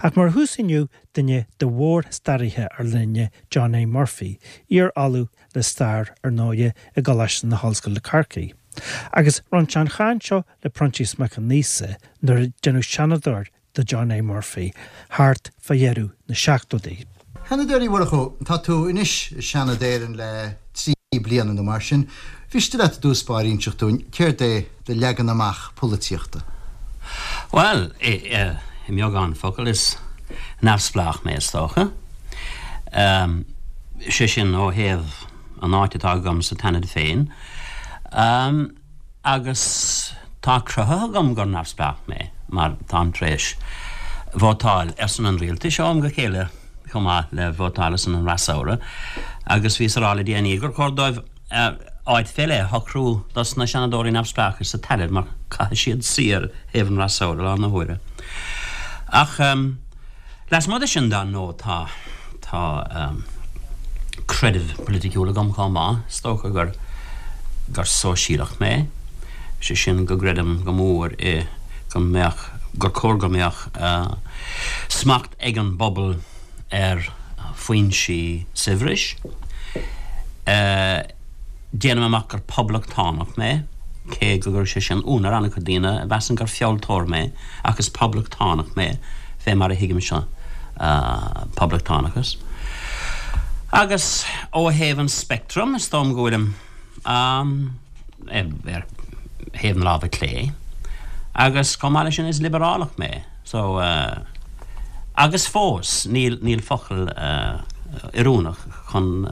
Ach mar thús inniu, duine de mhór-staraithe ár linne, John A. Murphy, iar-ollamh le stair, ar ndóighe, i gColáiste na hOllscoile Corcaigh. Agus rinne sé an chaint seo le Proinsias Mac Con Íosa nuair a deineadh Seanadóir de John A. Murphy thart fá dheireadh na seachtóidí. A Sheanadóir Uí Mhurchú, tá tú anois i Seanad Éireann le 3 bliana nó mar sin. Mhiste leat i dtús báire inseacht dúinn céard é do leagan amach polaitíochta? Bhuel, i mbeagán focal, is neamhspleách mé, is dócha. Sé sin, ó thaobh an áit atá agam sa tSeanad féin. Agus tá cruthaithe agam gur neamhspleách mé, mar táim tar éis vótáil ar son an rialtais ó am go chéile chomh maith le vótáil ar son an fhreasúra. Agus bhíos a rá le déanaí gur chóir dóibh áit fé leith a shocrú dos na Seanadóirí neamhspleácha sa tSeanad mar caithfidh siad suí ar thaobh an fhreasúra lá na huaire. Ach lasmuigh de sin, dar ndóigh, tá tá creideamh poiliticiúil agam chomh maith. Is dócha gur gur sóisialach mé, sé sin go gcreidim go mór i go mbeadh gur cóir go mbeadh smacht ag an bpobal ar foinsí saibhris. Déanaim amach gur poblachtánach mé, cé go gcuirfeadh sé sin ionadh ar an-chuid daoine a mheasann gur fealltóir mé, ach is poblachtánach mé, fé mar a thuigimse poblachtánachas. Agus ó thaobh an speictrim, is dóigh liom go bhfuilim ar thaobh na láimhe clé, agus chomh maith leis sin is liobrálach mé. So, agus fós, níl, níl focal oiriúnach chun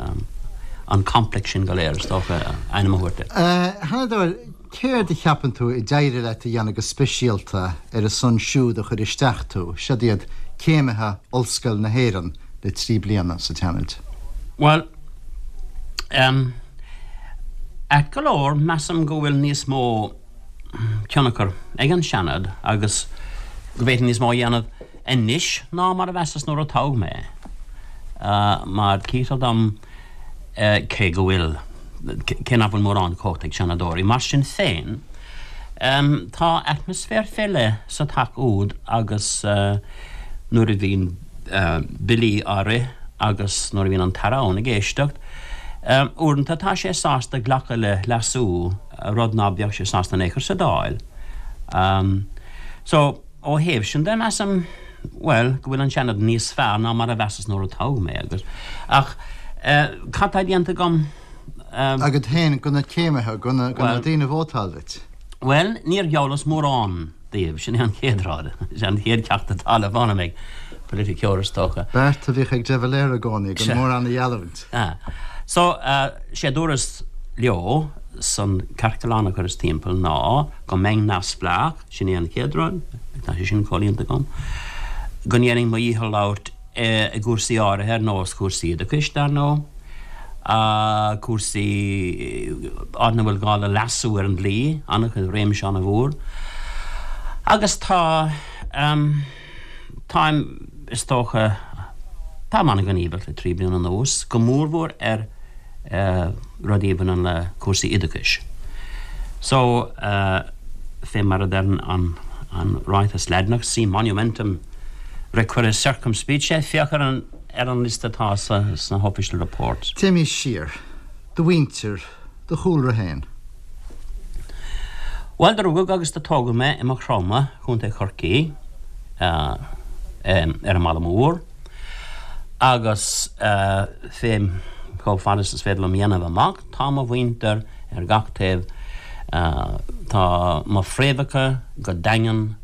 an complex sin go léir, is dócha, ainm a thabhairt air. A Sheanadóir, céard a cheapann tú a d'éirigh leat a dhéanamh go speisialta ar a son siúd a chuir isteach tú, siod iad céimithe Ollscoil na hÉireann le 3 bliana sa tSeanad? Bhuel, em, ait go leor, measaim go bhfuil níos mó tionchar ag an Seanad agus go bhféadfainn níos mó a dhéanamh anois ná mar a mheasas nuair a toghadh mé. Mar cítear dom, cé go bhfuil, cé nach bhfuil mórán cumhachta ag Seanadóirí, mar sin féin, tá atmaisféar fé leith sa teach úd agus nuair a bhíonn billí á rith agus nuair a bhíonn an tAire ann ag éisteacht, uaireanta tá sé sásta glacadh le leasú. rud ná beadh sé sásta in aon chor sa Dáil. So, ó thaobh sin de, measaim, bhuel, go bhfuil an Seanad níos fearr ná mar a mheasas nuair a toghadh mé agus, ach cad tá déanta agam? Agat féin, do na céimithe, do na daoine a vótáil duit? Bhuel, níor gheallas mórán daoibh, sin é an chéad rud, sin an chéad cheacht atá le foghlaim ag politiceoir, is dócha. Beart a bhíodh ag De Valera i gcónaí, gan mórán a gheallúint. So, sé a dúras leo san ciorclán a chuireas timpeall ná go mbeinn neamhspleách, sin é an chéad rud, tá sé sin comhlíonta agam, go ndéanfainn mo dhícheall labhairt i gcúrsaí áirithe ar nós cúrsaí oideachais, dar ndóigh, cúrsaí áit ina bhfuil gá le leasú ar an dlí, an-chuid, réimse an-mhór. Agus tá, táim, is dócha, táim an-ghníomhach le 3 bliana anuas, go mórmhór ar rudaí a bhaineann le cúrsaí oideachais. So, fé mar a deireann an ráiteas Laidineach, si monumentum requires circumspice, féach ar an ar an liosta atá sna hOfficial Reports. Téimís siar. Do mhuintir, do chúlra féin. Bhuel, do rugadh agus do tógadh mé i Maigh Chromtha, Contae Chorcaí, ar an mBaile Mór, agus fé chomh fada is is féidir liom a dhéanamh amach, tá mo mhuintir ar gach taobh, tá mo phréamhacha go daingean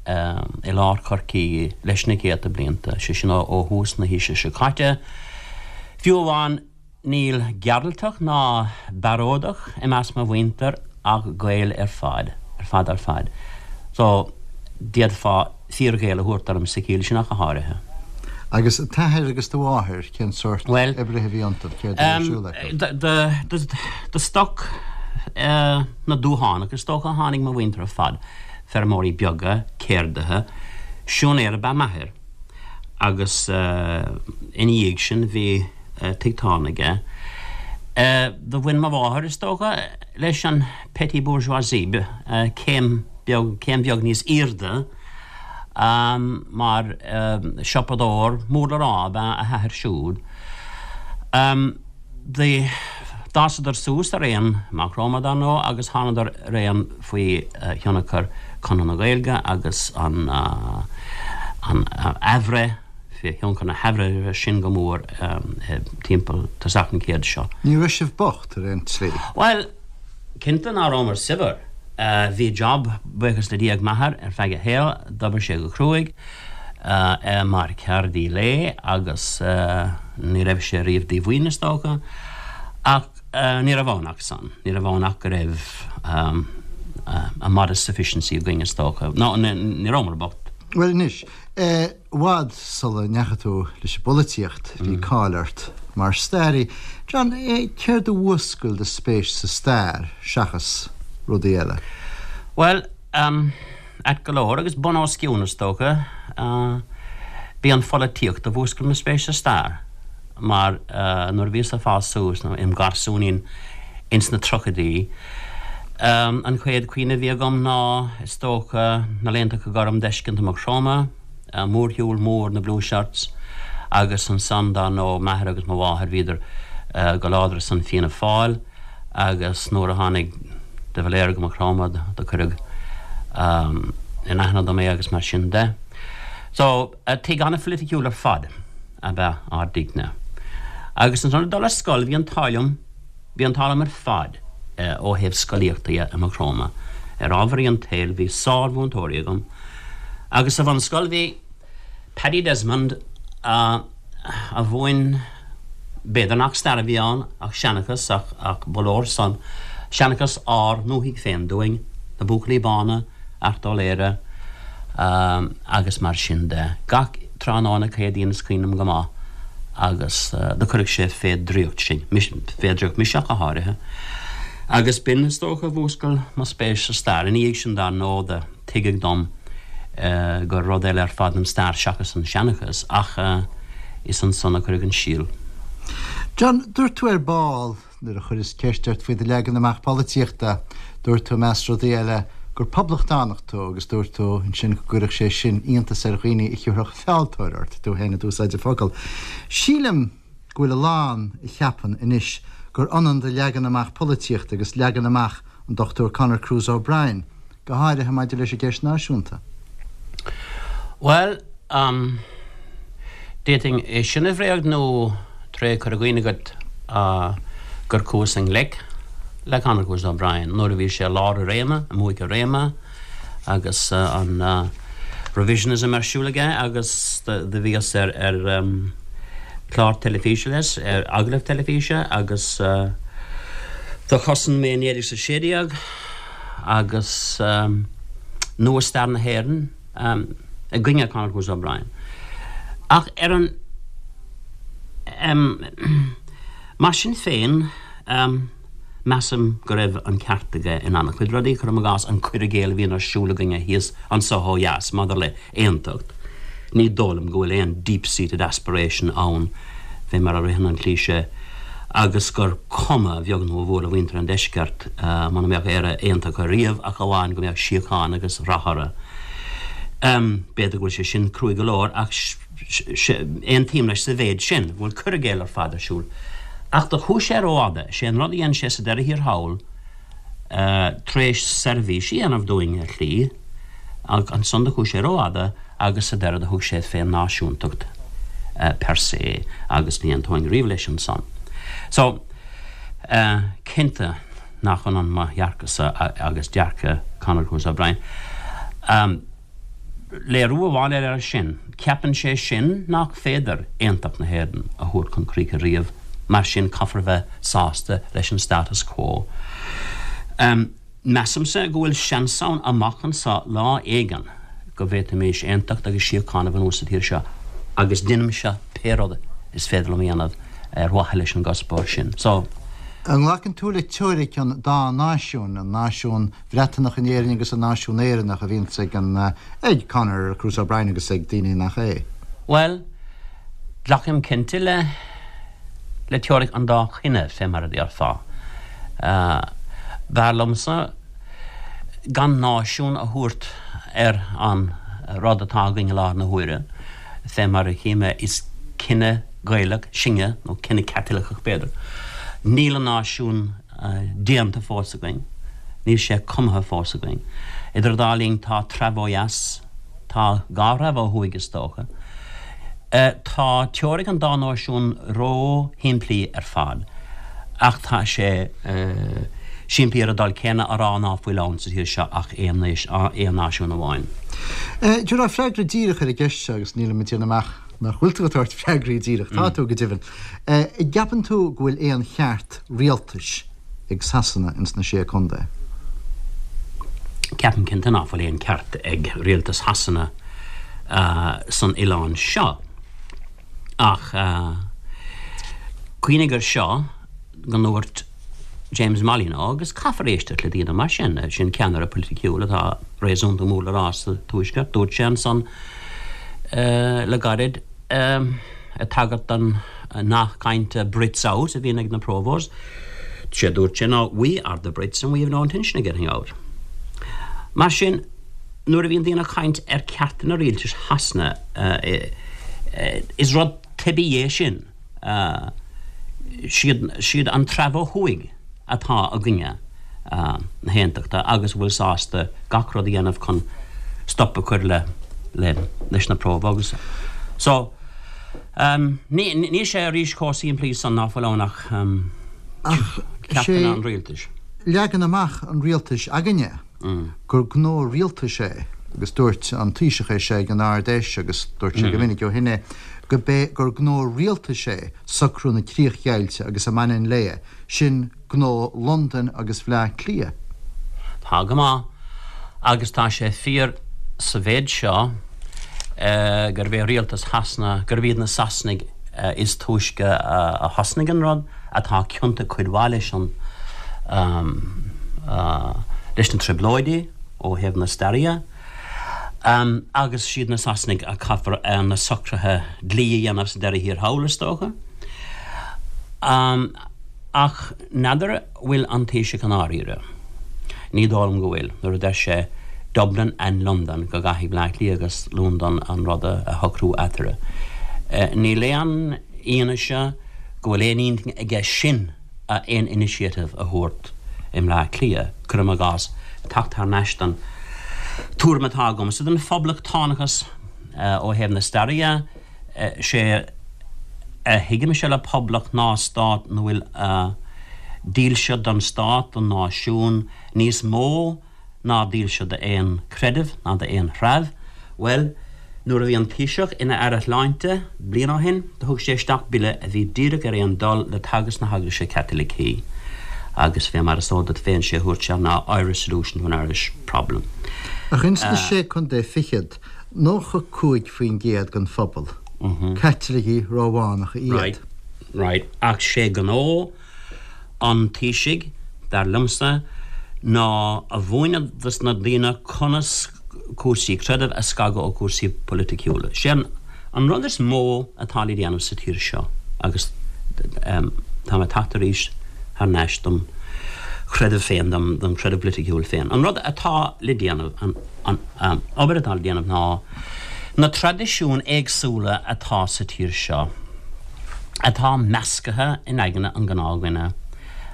i lár Chorcaí leis na céadta blianta, sé sin ó thús na haoise seo caite. Fiú amháin Níl Gearaltach ná Bearódach i measc mo mhuintir ach Gaeil ar fad, ar fad ar fad. So, d'fhéadfá fíor-Ghael a thabhairt orm sa chiall sin ach go háirithe. Agus t'athair agus do mháthair, cén sórt oibrithe a bhí iontu, céard a bhí ar siúl acu? De stoc na dtuathánach is dócha a tháinig mo mhuintir ar fad, feirmeoirí beaga, ceardaithe. Siúinéir ab ea m'athair agus ina dhiaidh sin bhí tigh tábhairne aige. Do bhain mo mháthair, is dócha, leis an petit bourgeoisie, céim beag, céim bheag níos aoirde. Mar siopadóir mór le rá ab ea a hathair siúd. D'fhásadar suas araon i Maigh Chromtha, dar ndóigh, agus thánadar araon faoi thionchar Chonradh na Gaeilge agus an athbhreith, faoi thionchar na hathbhreithe sin go mór timpeall tosach an chéid seo. Ní raibh sibh bocht ar aon tslí? Bhuel, cinnte ná rabhamar saibhir. Bhí job, buíochas le Dia, ag m'athair ar feadh a shaoil, d'oibir sé go cruaidh mar cheardaí lae agus ní raibh sé riamh díomhaoin is dócha, ach ní raibh ann ach san, ní raibh ann ach go raibh a modest sufficiency againn is dócha. No, ní rabhamar bocht. Bhuel anois, i bhfad sula ndeachaigh tú leis an bpolaitíocht, bhí cáil ort mar staraí. John, céard a mhúscail do spéis sa stair seachas rudaí eile? Bhuel, ait go leor, agus bun os cionn is dócha, b'í an pholaitíocht a mhúscail mo spéis sa stair, mar nuair a bhíos ag fás suas, nó im gharsúinín ins na tríochaidí, an chéad chuimhne a bhí agam ná, is dócha, na laethanta gorm d'fheiscint i Maigh Chromtha, mórshiúl mór na Blue Shirts, agus ansan, dar ndóigh, m'athair agus mo mháthair, bhíodar go láidir ar son Fianna Fáil. agus nuair a tháinig de Valera go Maigh Chromtha do cuireadh in aithne dom é agus mar sin de. So, tigh an-phoiliticiúil ar fad ab ea ár dtighne. Agus ansan ag dul ar scoil bhí an t-ádh liom, bhí an t-ádh liom ar fad ó thaobh scolaíochta dhe i Maigh Chromtha. Ar ámharaí an tsaoil bhí sár-mhúinteoirí agam agus sa bhunscoil bhí Paddy Desmond a mhúin, b'fhéidir nach stair a bhí ann ach seanchas ach ba leor san, seanchas ár ndúthaigh féin dúinn, na Buachaillí Bána, Art Ó Laoghaire agus mar sin de. Gach tráthnóna Céadaoin is cuimhin liom go maith agus do cuireadh sé fé dhraíocht sinn, fé dhraíocht mise ach go háirithe. Agus b'in is dócha a mhúscail mo spéis sa stair. Ina dhiaidh sin dar ndóigh do. Tuigeadh dom gur rud eile ar fad an stair seachas an seanchas, ach is ansan a cuireadh an síol. John, dúirt tú ar ball, nuair a chuireas ceist ort faoi do leagan amach polaitíochta, dúirt tú, i measc rudaí eile, gur poblachtánach tú agus dúirt tú ansin go gcuirfeadh sé sin iontas ar dhaoine a thiúrfadh fealltóir ort, tú féin a d'úsáid an focal. Sílim go bhfuil a lán a cheapann anois gur ionann do leagan amach polaitíochta agus leagan amach an Dr Conor Cruise O'Brien, go háirithe maidir leis an gceist náisiúnta. Bhuel, d'fhéadfainn é sin a bhréagnú tré cur i gcuimhne agat gur chuas i ngleic le Conor Cruise O'Brien nuair a bhí sé i lár a réime, i mbuaic a réime agus an revisionism ar siúl aige agus do bhíos ar ar chlár teilifíse leis, ar agallamh teilifíse agus do chosain mé 1916. agus nua-stair na hÉireann i gcoinne Conor Cruise O'Brien. Ach ar an Mar sin féin, measaim go raibh an ceart aige in an-chuid rudaí, cuirim i gcás an cur i gcéill a bhíonn ar siúl againne thíos anso ó dheas maidir le aontacht. Ní dóigh liom go bhfuil aon deep-seated aspiration ann fé mar a ritheann an cliché agus gur cuma a bheag nó a mhór le mhuintir an deiscirt muna mbeadh Éire aontaithe riamh ach amháin go mbeadh síocháin agus rath orthu. B'fhéidir go bhfuil sé sin cruaidh go leor ach aontaím leis sa mhéid sin, go bhfuil cur i gcéill ar fad ar siúl. Ach do chuaigh sé rófhada. Sé an rud a dhein sé sa deireadh thiar thall, tar éis seirbhís a dhéanamh dúinn ar shlí, ach ansan do chuaigh sé rófhada agus sa deireadh do thug sé fén náisiúntacht per se agus ní aontóinn riamh leis ansan. So, cinnte nach ionann mo dhearcadh-sa agus dearcadh Conor Cruise O'Brien. Léiriú amháin eile air sin, ceapann sé sin nach féidir aontacht na hÉireann a thabhairt chun críche riamh, mar sin caithfear a bheith sásta leis an status quo. Measaimse go bhfuil seans ann amach anseo lá éigin go bhféadfaimis aontacht agus síocháin a bhunú sa tír seo agus déanfaimse pé rud is féidir liom a dhéanamh ar mhaithe leis an gcuspóir sin. So. An nglacann tú le teoiric an dá náisiún, an náisiún Bhreatanach in Éirinn agus an náisiún Éireannach a bhíonns ag an, ag Conor Cruise O'Brien agus ag daoine nach é? Bhuel, glacaim cinnte le, le teoiric an dá chine, fé mar a déarfá. B'fhearr liomsa gan náisiún a thabhairt ar an. rud atá againn i láthair na huaire, fé mar a chí mé, is cine Gaelach sinne, nó cine Caitliceach b'fhéidir. Níl an náisiún déanta fós againn, níl sé cumtha fós againn. Idir an dá linn tá treabh ó dheas, tá dhá threabh ó thuaidh is dócha. Tá teoiric an dá náisiún ró-shimplí ar fad, ach tá sé simplí ar an dul céanna a rá ná fuil ann sa tír seo ach aon náisiún amháin. Tabhair freagra díreach ar an gceist seo agus nílim ag déanamh amach nach bhfuil tú ag tabhairt freagraí díreach, tá tú go deimhin. An gceapann tú go bhfuil aon cheart rialtais ag Sasana ins na Sé Contae? Ceapaim cinnte ná fuil aon ceart ag rialtas Shasana san oileán seo. Ach cuimhnigh ar seo, go ndúirt James Molyneux, agus caithfear éisteacht le daoine mar sin, sin ceannaire poiliticiúil atá réasúnta mór le rá sa Tuaisceart, dúirt sé ansan le gairid, ag tagairt don nath cainte 'Brits out' a bhíonn ag na Provos, sé a dúirt sé ná 'We are the Brits and we have no intention of getting out'. Mar sin, nuair a bhíonn daoine ag caint ar ceartanna rialtais Shasana, is rud teibí é sin. Siad an treabh ó thuaidh atá i gcoinne na haontachta agus a bhfuil sásta gach rud a dhéanamh chun stop a chur le leis na Provos. So, níl sé arís chomh simplí san ná fuil ann ach ceartanna an rialtais. Leagan amach an rialtais againne. gur gnó rialtais é, agus dúirt an Taoiseach é seo ag an Ard-Fheis agus dúirt sé go minic ó shin é, go b'é gur gnó rialtais é socrú na críochdheighilte agus a mbaineann léi, sin gnó Londain agus Bhleá Cliath. Tá go maith, agus tá sé fíor sa mhéid seo gurb é rialtas Shasana, gurb iad na Sasanaigh is túisce a thosnaigh an rud, atá ciontach cuid mhaith leis an leis na trioblóidí ó thaobh na staire dhe, agus siad na Sasanaigh a caithfear na socruithe dlí a dhéanamh sa deireadh thiar thall, is dócha. Ach n'fheadar bhfuil an Taoiseach i ndáiríre. Ní dóigh liom go bhfuil, nuair a deir sé Dublin and London go gcaithfidh Bleá Cliath agus Londain an rud a shocrú eatarthu. Níl aon fhianaise go bhfuil aon intinn aige sin aon initiative a thabhairt i mBleá Cliath, cuirim i gcás, teacht thar n-ais don tuairim atá agamsa den phoblachtánachas ó thaobh na staire dhe, sé a thuigimse le poblacht ná stát 'na bhfuil dílse don stát, don náisiún, níos mó ná dílse d'aon chreideamh ná d'aon threabh. Bhuel, nuair a bhí an Taoiseach ina Aire Shláinte bliain ó shin, do thug sé isteach bille a bhí díreach ar aon dul le teagasc na hEaglaise Caitilicí agus fé mar is eol duit féin, sé a dhúirt sé ná Irish solution to an Irish problem. Ach ins na Sé Contae Fichead, 95% den phobal, Caitlicigh Rómhánacha iad. Right, right. Ach sé gnó an Taoisigh, dar liomsa, ná a mhúineadh dos na daoine conas cúrsaí creidimh a scagadh ó chúrsaí poiliticiúla. Sé an rud is mó atá le déanamh sa tír seo, agus tá mé ag teacht arís thar n-ais dom chreideamh féin, dom chreideamh polaiticiúil féin, an rud atá le déanamh, an obair atá le déanamh ná na traidisiúin éagsúla atá sa tír seo, atá meascaithe in aigne an ghnáthdhuine,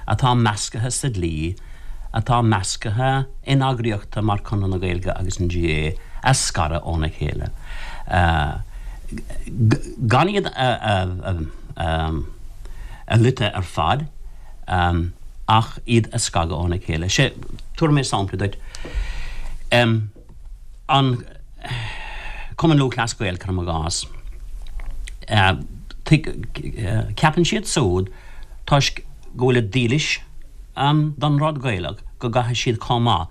atá meascaithe sa dlí, atá meascaithe in eagraíochtaí mar Conradh na Gaeilge agus an GAA, a scaradh óna chéile. Gan iad a loiteadh ar fad, ach iad a scagadh óna chéile. Sé, tabharfaidh mé sampla duit. An Cumann Lúthchleas Gael, cuirim i gcás, ceapann siad súd, toisc go bhfuilid dílis don rud Gaelach, go gcaithfidh siad chomh maith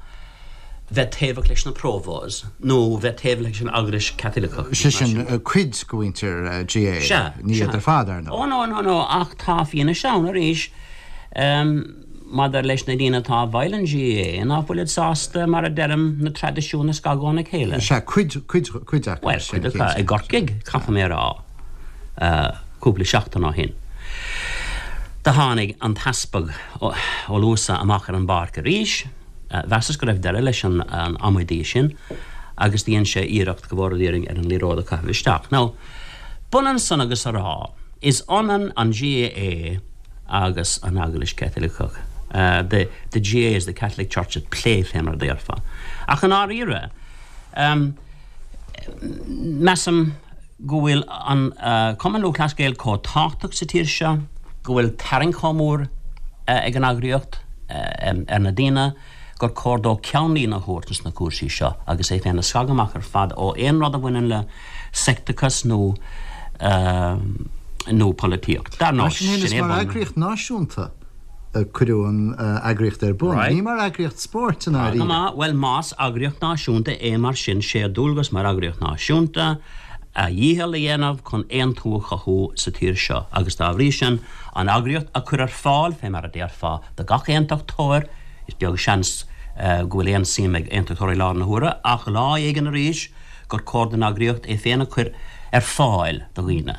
bheith taobhach leis na Provos nó bheith taobhach leis an Eaglais Chaitliceach. Sé sin, cuid de mhuintir GAA, ní iad ar fad, ar ndóigh. Ó no, no, no, ach tá fianaise ann arís. Maidir leis na daoine atá i bhfeighil an GAA, ná fuilid sásta, mar a deirim, na traidisiúin a scagadh óna chéile? Sea, cuid, cuid, cuid acu. Bhuel, cuid acu. I gCorcaigh, caithfidh mé a rá, cúpla seachtain ó shin, do tháinig an tEaspag Ó Luasa amach ar an bpáirc arís. Mheasas go raibh deireadh leis an amaidí sin. Agus dhein sé iarracht, go bhfóire Dia orainn, ar an liathróid a chaitheamh isteach. Now, b'ionann san agus a rá, is ionann an GAA agus an Eaglais Chaitliceach. The, the GAA is the Catholic Church at play, fé mar a déarfá. Ach i ndáiríre, measaim go bhfuil an Cumann Lúthchleas Gael chomh tábhachtach sa tír seo, go bhfuil tarraingt chomh mór ag an eagraíocht ar na daoine, gur cóir dó ceannlíne a thabhairt ins na cúrsaí seo agus é féin a scagadh amach ar fad ó aon rud a bhaineann le seicteachas nó nó polaitíocht. Dar ndóigh, sin é bun. Is mar eagraíocht náisiúnta a cuireadh an eagraíocht ar bun, ní mar eagraíocht spóirt i ndáiríre. Tá go maith. Bhuel, más eagraíocht náisiúnta é mar sin, sé a dualgas mar eagraíocht náisiúnta a dhícheall a dhéanamh chun aontú a chothú sa tír seo agus dá bhrí sin an eagraíocht a chur ar fáil, fé mar a déarfá, do gach aontachtóir. Is beag seans go bhfuil aon suim ag aontachtóirí i láthair na huaire, ach lá éigin arís gur cóir don eagraíocht é féin a chur ar fáil do dhaoine.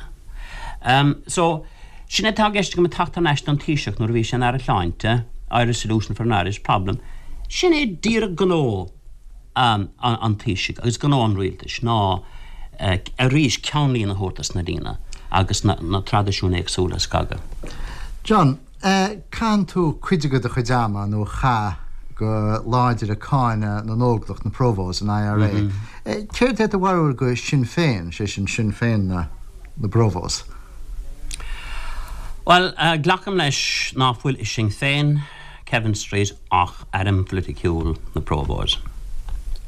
So, sin é atá i gceist agam ag teacht thar n-ais don Taoiseach nuair a bhí sé ina Aire Sláinte, Irish solution for an Irish problem. Sin é díreach gnó an Taoisigh agus gnó an rialtais ná arís ceannlíne a thabhairt dos na daoine agus na traidisiúin éagsúla a scagadh. John. Caitheann tú cuid de do chuid ama, nó chaith, go láidir ag cáineadh na nÓglach, na Provos, an IRA. Céard é do bharúil go Sinn Féin, sé sin Sinn Féin na bProvos? Bhuel, glacaim leis ná fuil i Sinn Féin Kevin Street ach airm phoiliticiúil na Provos,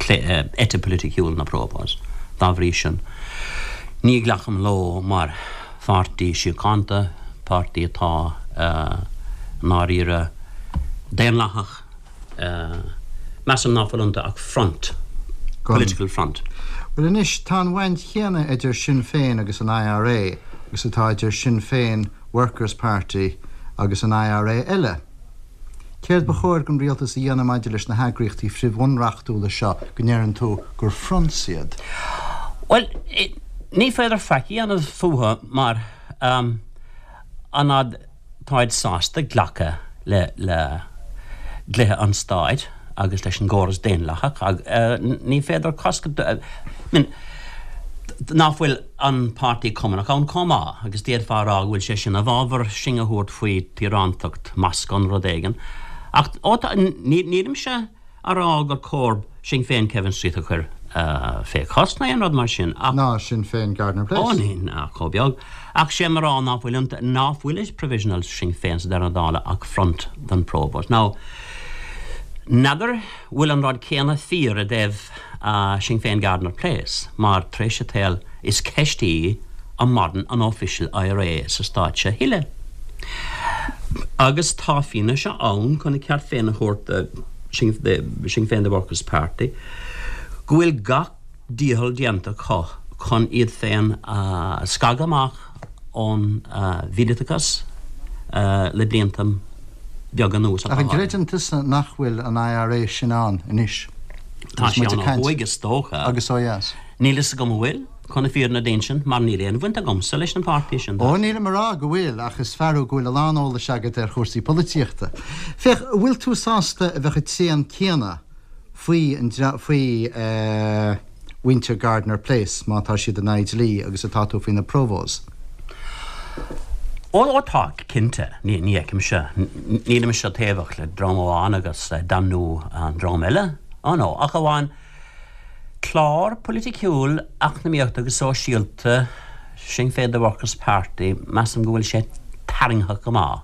eite phoiliticiúil na Provos. Dá bhrí sin, ní ghlacaim leo mar pháirtí síochánta, páirtí atá i ndáiríre daonlathach. Measaim ná fuil iontu ach front, political front. Bhuel anois, tá an bhaint chéanna idir Sinn Féin agus an IRA agus atá idir Sinn Féin Workers Party agus an IRA eile. Céard ba chóir don rialtas a dhéanamh maidir leis na heagraíochtaí frithbhunreachtúla seo go ndeireann tú gur fronts iad? Bhuel, ní féidir faic a dhéanamh fúthu mar an fhad táid sásta glacadh le le dlíthe an stáit agus leis an gcóras daonlathach, ní féidir cosc a, I mean, ná fuil an Páirtí Cumannach ann chomh maith, agus d'fhéadfá a rá go bhfuil sé sin i bhfabhar sing a thabhairt faoi thíorántacht Moscow nó rud éigin. Ach, ó tá, nílimse a rá gur cóir Sinn Féin Kevin Street a chur fé chosc ná aon rud mar sin, ach. Ná Sinn Féin Gardiner Place. Ó, ní, ach chomh beag. Ach sé mo rá ná fuil, ná fuil i Provisional Sinn Féin sa deireadh na dála ach front don Provos. Now, n'fheadar bhfuil an rud céanna fíor i dtaobh Sinn Féin Gardiner Place mar tar éis an tsaoil is ceist í an maireann an Official IRA sa stát seo a thuilleadh. Agus tá fianaise ann chun a ceart féin a thabhairt do Sinn Féin The Workers Party go bhfuil gach dícheall déanta acu chun iad féin a scagadh amach ón mhíleatachas le blianta beaga anuas. Ach an gcreideann tusa nach bhfuil an IRA sin ann anois? Tá sé ann ó thuaidh is dócha. Agus ó dheas? Níl fhios agam an bhfuil, chun na fírinne d'insint, mar níl aon bhaint agamsa leis an pháirtí sin. Ó, nílim a rá go bhfuil, ach is fear thú go bhfuil a lán eolais agat ar chúrsaí polaitíochta. Féach, an bhfuil tú sásta a bheadh an tréan céanna faoi an faoi mhuintir Gardiner Place má tá siad in aghaidh dlí agus atá tú faoi na Provos? Ó, ó tá, cinnte. Ní, ní fheicimse, nílimse taobhach le dream amháin agus damnú an dream eile. Ó no, ach amháin clár poiliticiúil, eacnamaíochta agus sóisialta Sinn Féin The Workers Party, measaim go bhfuil sé tarraingtheach go maith.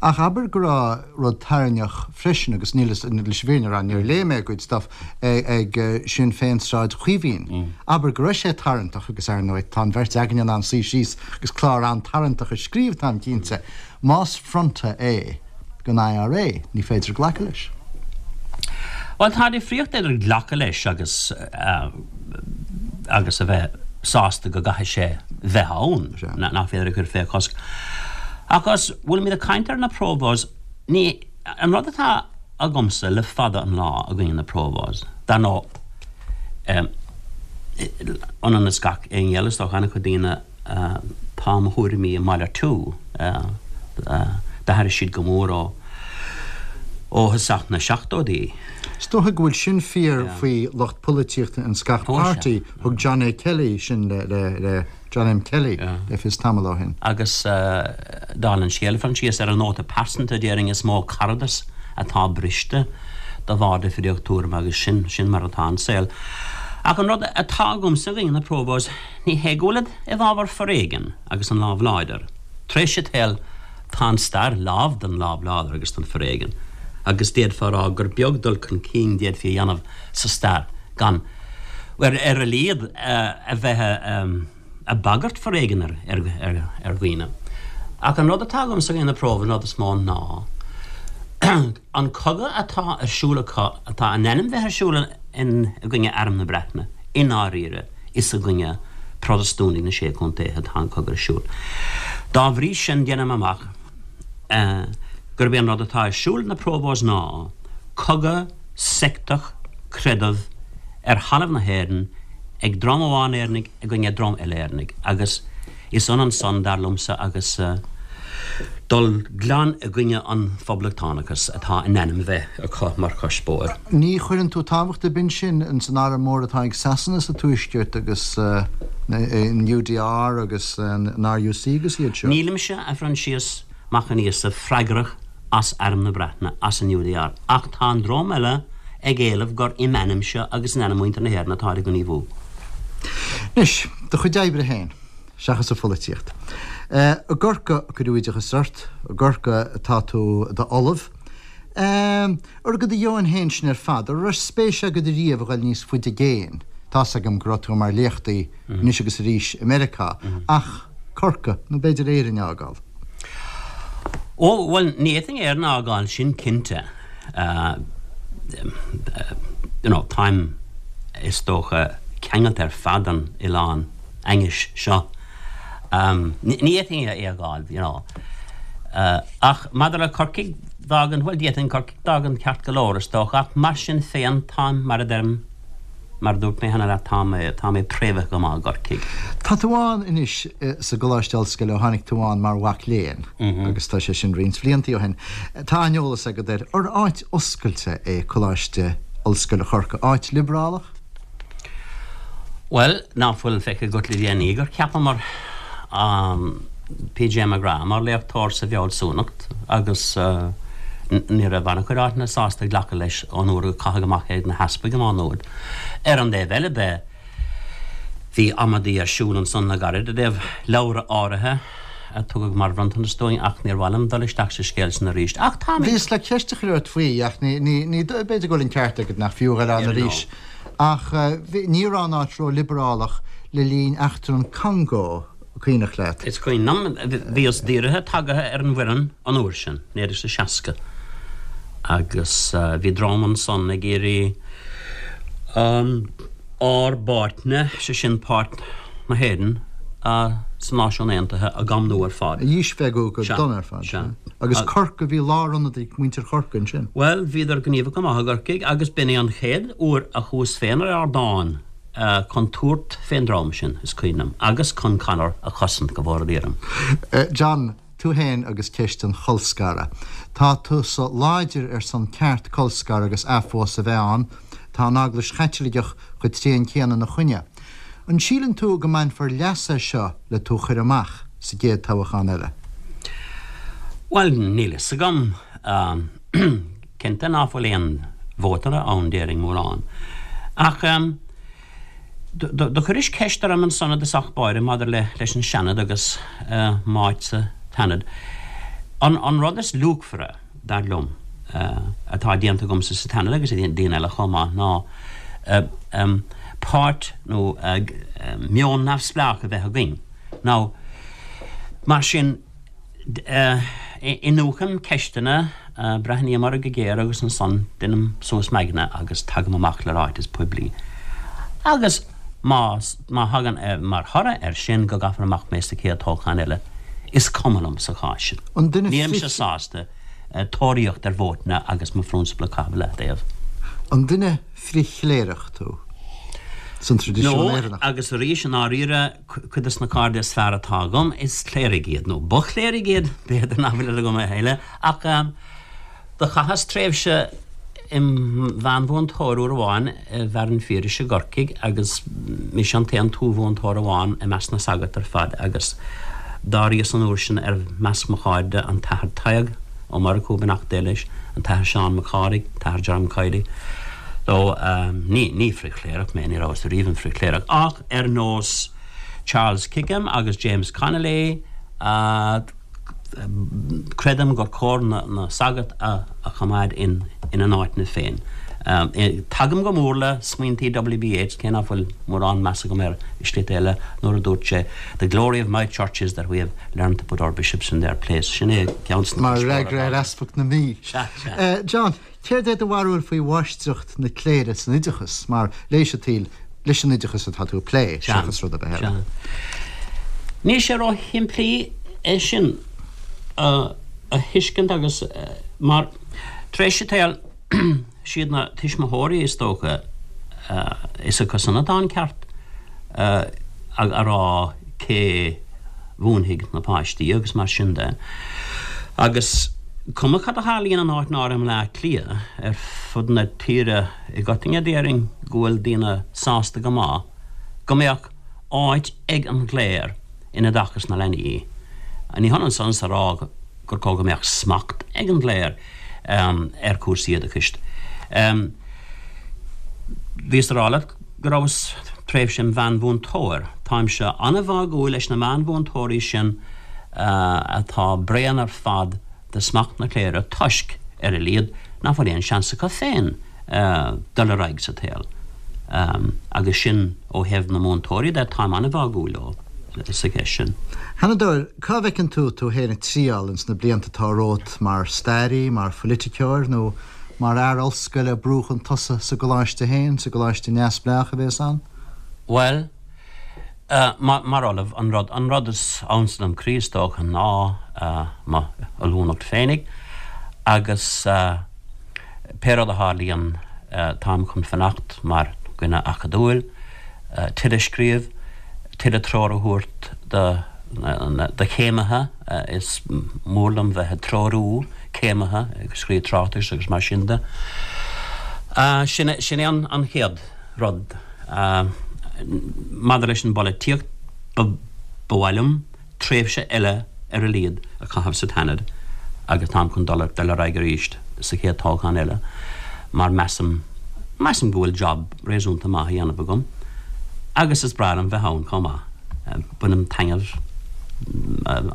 Ach abair go raibh rud tarraingtheach freisin, agus níl leis an bhfírinne a rá, níor léigh mé a gcuid stuff, ag Sinn Féin Sráid Chaoimhín. Abair go raibh sé tarraingteach, agus ar ndóigh tá an bheirt againne in ann suí síos agus clár an-tarraingteach a scríobh, táim cinnte. Más fronta é don IRA, ní féidir glacadh leis. Bhuel, tá difríocht idir glacadh leis agus agus a bheith sásta go gcaithfidh sé bheith ann, nach féidir a chur fé chosc. Ach os bhfuilimid ag caint ar na Provos, ní, an rud atá agamsa le fada an lá i gcoinne na Provos, dar ndóigh, ionann is gach éinne eile, is dócha, an-chuid daoine, tá mo thuairimí ag malartú, d'athraigh siad go mór ó. Ó thosach na seachtóidí. Is dócha go bhfuil sin fíor faoi lucht polaitíochta ins gach páirtí. Thug John A. Kelly sin le John M. Kelly le fios tamall ó shin. Agus dála an scéil, a Phroinsias, ar an nóta pearsanta, déarfainn is mó caradas atá briste de bharr difríocht tuairime agus sin, sin mar atá an saol. Ach an rud atá agamsa i gcoinne na Provos, ní hé go bhfuilid i bhfabhar foréigin agus an lámh láidir. Tar éis an tsaoil, Tá an stair lán den lámh láidir agus den foréigean, agus d'fhéadfá a rá gur beag dul chun cinn d'fhéadfaí a dhéanamh sa stair gan, bhuel, ar a laghad, a bheith ag bagairt foréigin ar dhaoine. Ach an rud atá agamsa i gcoinne na Provos, an rud is mó ná an cogadh atá ar siúl acu, atá in ainm bheith ar siúl i gcoinne Arm na Breataine, i ndáiríre, Is i gcoinne Protastúnaigh na Sé Chontae atá an cogadh ar siúl. Dá bhrí sin, déanaim amach gurb é an rud atá ar siúl ag na Provos ná cogadh seicteach creidimh ar thalamh na hÉireann ag dream amháin Éireannaigh i gcoinne dream eile Éireannaigh agus Is ionann san, dar liomsa, agus dul glan i gcoinne an phoblachtánachais atá in ainm bheith acu mar chuspóir. Ní chuireann tú tábhacht ar bith ansin ins an arm mór atá ag Sasana sa Tuaisceart agus an UDR agus an RUC agus iad seo? Nílimse, a Phroinsias Mac an Íosa, freagrach as Arm na Breataine, as an UDR, ach tá an dream eile ag éileamh gur im ainmse agus in ainm mhuintir na hÉireann atáid ag gníomhú. Anois, do chuid oibre féin. seachas an pholaitíocht. I gCorcaigh a cuireadh oideachas ort, i gCorcaigh atá tú i d'ollamh. Ar do dheoin féin sin ar fad, an raibh spéis agat riamh a ghoil níos faide i gcéin? Tá's agam go raibh tú mar léachtaí anois agus arís i Meiriceá, ach Corcaigh, nó b'fhéidir Éirinn a fhágáil? Ó, bhuel, ní fhéadfainn Éirinn a fhágáil, sin cinnte. You know, táim, is dócha, ceangailte ar fad den oileán. ainnis seo. Ní fhéadfainn é a fhágáil, you know. Ach maidir le Corcaigh d'fhágaint, bhuel, d'fhéadfainn Corcaigh d'fhágaint ceart go leor, is dócha, ach mar sin féin, táim, mar a deirim, mar a dúirt mé cheana leat, tá mé, tá mé préamhaithe go maith i gCorcaigh. Tá tú ann anois sa gColáiste Ollscoile ó tháinig tú ann mar mhac léinn, agus tá sé sin roinnt bhliantaí ó shin. Tá an-eolas agat air. Ar áit oscailte é Coláiste Ollscoile Chorcaí, áit liobrálach? Bhuel, ná fuil feicthe agat le déanaí gur cheapamar P.J. McGrath mar léachtóir sa bhfealsúnacht agus ní raibh an-chuid áiteanna sásta glacadh leis ón uair a caitheadh amach é ag na heaspaig i Má Nuad. Ar an dtaobh eile de, bhí amaidí ar siúl ansan le gairid i dtaobh leabhra áirithe a tugadh mar bhronntanas dúinn ach níor mhaith liom dul isteach sa scéal sin arís. Ach táimid. Bhíos le ceist a chur ort faoi ach ní, ní, ní, b'fhéidir go bhfuil an ceart agat nach fiú a dhul ann arís. Ach ní raibh an áit ró-liobrálach le linn eachtra an Congó, cuimhneach leat? Is cuimhin liom, bhíos díreach tagaithe ar an bhfoireann an uair sin, 1960, agus bhí dream ansan ag iarraidh ár bpáirtne, sé sin páirt na hÉireann sna Náisiúin Aontaithe, a dhamnú ar fad. A dhíspeagadh go dona ar fad. Sea. Agus Corcaigh, bhí lárionad ag muintir Chorcaí ansin. Bhuel, bhíodar gníomhach go maith i gCorcaigh agus b'in é an chéad uair a chuas féin ar ardán chun tabhairt fén dream sin, is cuimhin liom, agus chun Conor a chosaint, go bhfóire Dia orm. John, tú féin agus ceist an cholscartha. Tá tusa láidir ar son ceart colscaradh agus athphósadh a bheith ann. Tá an Eaglais Chaitliceach chomh tréan céanna ina choinne. An síleann tú go mbainfear leas as seo le tú a chur amach sa gcéad toghachán eile? Bhuel, níl fhios agam. Cinnte ná fuil aon vótaire ann, déarfainn, mórán. Ach do chuiris ceist orm ansan i dtosach báire maidir leis an Seanad agus m'áit sa tSeanad. An rud is luachmhaire, dar liom, atá déanta agamsa sa tSeanad agus ag daoine eile chomh maith ná páirt nó meon neamhspleách a bheith againn. Now, mar sin, iniúchaim ceisteanna, breathnaím orthu go géar agus ansan deinim suas m'aigne agus tagaim amach le ráiteas poiblí. Agus má má thagann mar thoradh air sin go gcaithfear amach mé sa chéad toghchán eile, is cuma liom sa chás sin. An duine Nílimse sásta tóraíocht ar vótanna agus mo phrionsabal a chaitheamh i leataobh. An duine frith-chléireach tú? San traidisiún No, Éireannach. agus arís, i ndáiríre, cuid dos na cairde is fearr atá agam, is cléirigh iad, nó ba chléirigh iad, b'fhéidir nach bhfuil agam a thuilleadh, ach. Do chaitheas tréimhse im mheánmhúinteoir uair amháin i bhFearann Phiarais i gCorcaigh agus mise an t-aon tuathmhúinteoir amháin i measc na sagart ar fad agus d'áiríos an uair sin ar measc mo chairde an tAthair Tadhg Ó Murchú, beannacht Dé leis, an tAthair Seán Mac Cárthaigh, an tAthair Jerome Kiely. So, ní, ní frith-chléireach mé, ní rabhas ariamh im frith-chléireach ach ar nós Charles Kickham agus James Connolly, Creidim gur cóir na sagairt a choimeád ina n-áiteanna féin. Tagaim go mór le smaointí W.B. Yeats, cé nach bhfuil mórán meas agam air i slite eile, nuair a dúirt sé, The glory of my church is that we have learned to put our bishops in their place. Sin é ceann de na Mar fhreagra ar Easpag na Mí. Sea, sea. John, Céard é do bharúil faoi mháistreacht na cléire san oideachas, mar leigheas an tsaoil leis an oideachas atá tú ag plé, seachas rud ar bith eile? Níl sé ró-shimplí é sin a thuiscint agus mar, tar éis an tsaoil, siad na tuismitheoirí is dócha, is acu san atá an ceart a rá cé mhúinfidh na páistí agus mar sin de. Agus cuma cad a tharlaíonn in áit áirithe i mBleá Cliath, ar fud na tíre i gcoitinne déarfainn go bhfuil daoine sásta go maith go mbeadh áit ag an gcléir in oideachas na leanaí. Ní hionann san is a rá gur cóir go mbeadh smacht ag an gcléir ar chúrsaí oideachais. Bhíos a rá leat go rabhas tréimhse im mheánmhúinteoir. Táimse an-bháúil leis na meánmhúinteoirí sin atá bréan ar fad de smacht na cléire toisc, ar a laghad, nach bhfuil aon seans acu féin dul ar aghaidh sa tsaol. Agus sin ó thaobh na múinteoirí de, táim an-bháúil leo sa cheist sin. A Sheanadóir, cá bhfeiceann tú tú féin ag triall ins na blianta atá romhat, mar stairí, mar phoiliticeoir nó mar fhear ollscoile ag brú chun tosaigh sa gcoláiste féin, sa gcoláiste neamhspleách a bhéas ann? Bhuel, mar ollamh, an rud, an rud is ansa dom croí is dócha ná mo ollúnacht féinig agus pé rud a tharlaíonn táim chun fanacht mar dhuine acadúil, tuilleadh scríobh, tuilleadh treoir a thabhairt do, do chéimithe, is mór liom bheith ag treorú. céimithe ag scríobh tráchtais agus mar sin de. Sin é an chéad rud. Maidir leis an bpolaitíocht, ba mhaith liom tréimhse eile ar a laghad a chaitheamh sa tSeanad agus táim chun dul ar aghaidh arís sa chéad toghchán eile mar measaim, measaim go bhfuil job réasúnta maith á dhéanamh agam agus is breá liom bheith ann chomh maith. Bainim taitneamh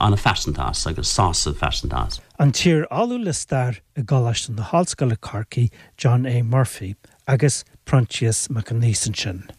an-phearsanta as agus sásamh pearsanta as. An t-iar-ollamh le stair i gColáiste na hOllscoile Corcaigh, John A. Murphy, agus Proinsias Mac Aonghusa ansin.